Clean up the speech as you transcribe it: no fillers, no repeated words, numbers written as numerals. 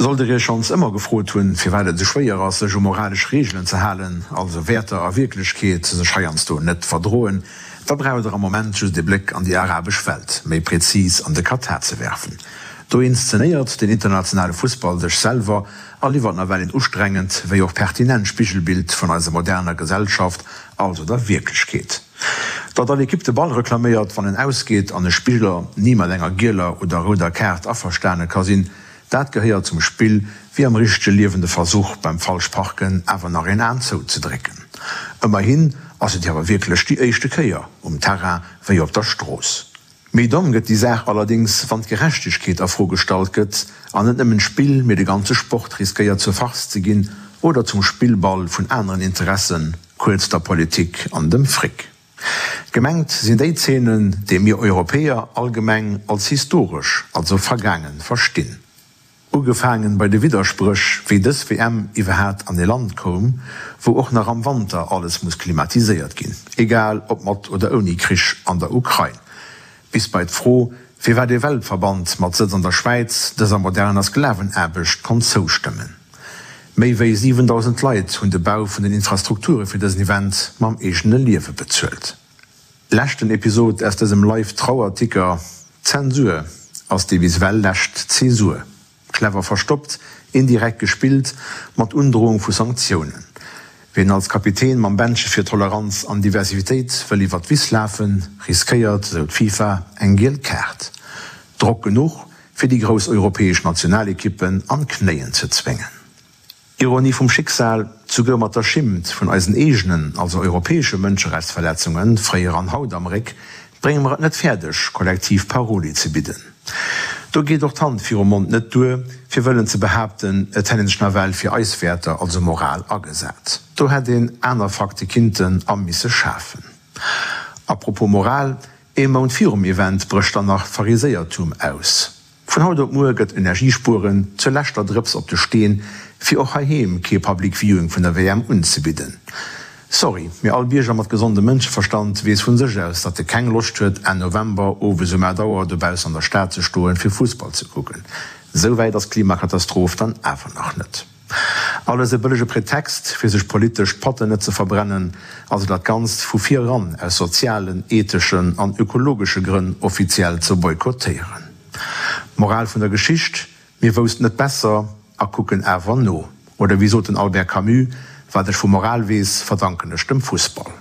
Sollt der Iech schonns ëmmer gefrot hunn, firwat et esou schwéier ass, sech u moralesch Reegelen ze halen, also Wäerter a Wierklechkeet sech heiansdo net verdroen, da braucht der am Moment just ee Bléck an déi arabesch Welt, méi prezis an de Katar ze werfen. Do inszenéiert den internationale Fussball sech selwer a liwwert nawell een ustrengend wéi och pertinent Spigelbild vun eiser moderner Gesellschaft, also der Wierklechkeet. Datt all Ekipp de Ball reklaméiert, wann en ausgeet an e Spiller ni mat enger gieler oder rouder Kaart averstane ka sinn, Dat gehéiert zum Spill, wéi am richtege Liewen de Versuch, beim Falschparken awer nach een Aen zouzedrécken. Ëmmerhin ass et jo awer wierklech déi éischte Kéier, um Terrain wéi op der Strooss. Méi domm gëtt déi Saach allerdéngs, wann d'Gerechtegkeet a Fro gestallt gëtt an net nëmmen d'Spill, mee de ganze Sport riskéiert zur Farce ze ginn oder zum Spillball vun aneren Interessen, kuerz der Politik an dem Fric. Gemengt sinn déi Zeenen, déi mir Europäer allgemeng als historesch, also vergaangen, verstinn. Ugefaangen bei de Widderspréch, wéi dës WM iwwerhaat an ee Land koum, wou och nach am Wanter alles muss klimatiséiert ginn, egal ob mat oder ouni Krich an der Ukrain, bis bei d'Fro, firwat ee Weltverband mat Sëtz an der Schwäiz dëser moderner Sklavenaarbecht konnt zoustëmmen. Méi wéi 7.000 Leit hunn de Bau vun den Infrastrukture fir dësen Event mam eegene Liewe bezuelt. Leschten Episod aus dësem Live-Trauerticker, Zensur ass déi bis ewell lescht Zäsur. Clever verstoppt, indirekt gespillt, mat Undrohung vu Sanktiounen. Wien als Kapitän mam Bändche fir Toleranz an Diversivitéit wëll iwwer d'Wiss lafen, riskéiert, esou d'FIFA, eng giel Kaart. Drock genuch, fir déi grouss europäesch Nationalekippen an d'Knéien ze zwéngen. Ironie vum Schicksal, Souguer mat der Schimmt vun eisen eegenen, also europäesche Mënscherechtsverletzungen, fréier an haut am Réck, brénge mer et net fäerdeg, kollektiv Paroli ze bidden. Do geet och d'Hand virum Mond net duer, fir wëllen ze behaapten, et hätt een sech nawell fir eis Wäerter, also Moral, agesat. Do hätt een aner Fakte kinnten a misse schafen. A propos Moral, Ee Mount virum Event brécht dann nach d'Phariséiertum aus. Vun haut op muer gëtt Energiespueren zur leschter Drëps op de Steen, fir och heiheem kee Public Viewing vun der WM unzebidden. Sorry, mee all Bierger mat gesondem Mënscheverstand weess vun sech aus, datt e keng Loscht huet, Enn November owes um 8 Auer dobaussen an der Stad ze stoen, fir Fussball ze kucken. Esou wäit ass d'Klimakatastroph dann awer nach net. Alles e bëllege Pretext, fir sech politesch d'Patten net ze verbrennen, also dat Ganzt vu vir eran aus sozialen, etheschen an ökologesche Grënn offiziell ze boykottéieren. D'Moral vun der Geschicht, Mir woussten et besser a kucken awer no. Oder wéi sot den Albert Camus, Wat ech vu Moral weess, verdanken ech dem Fussball.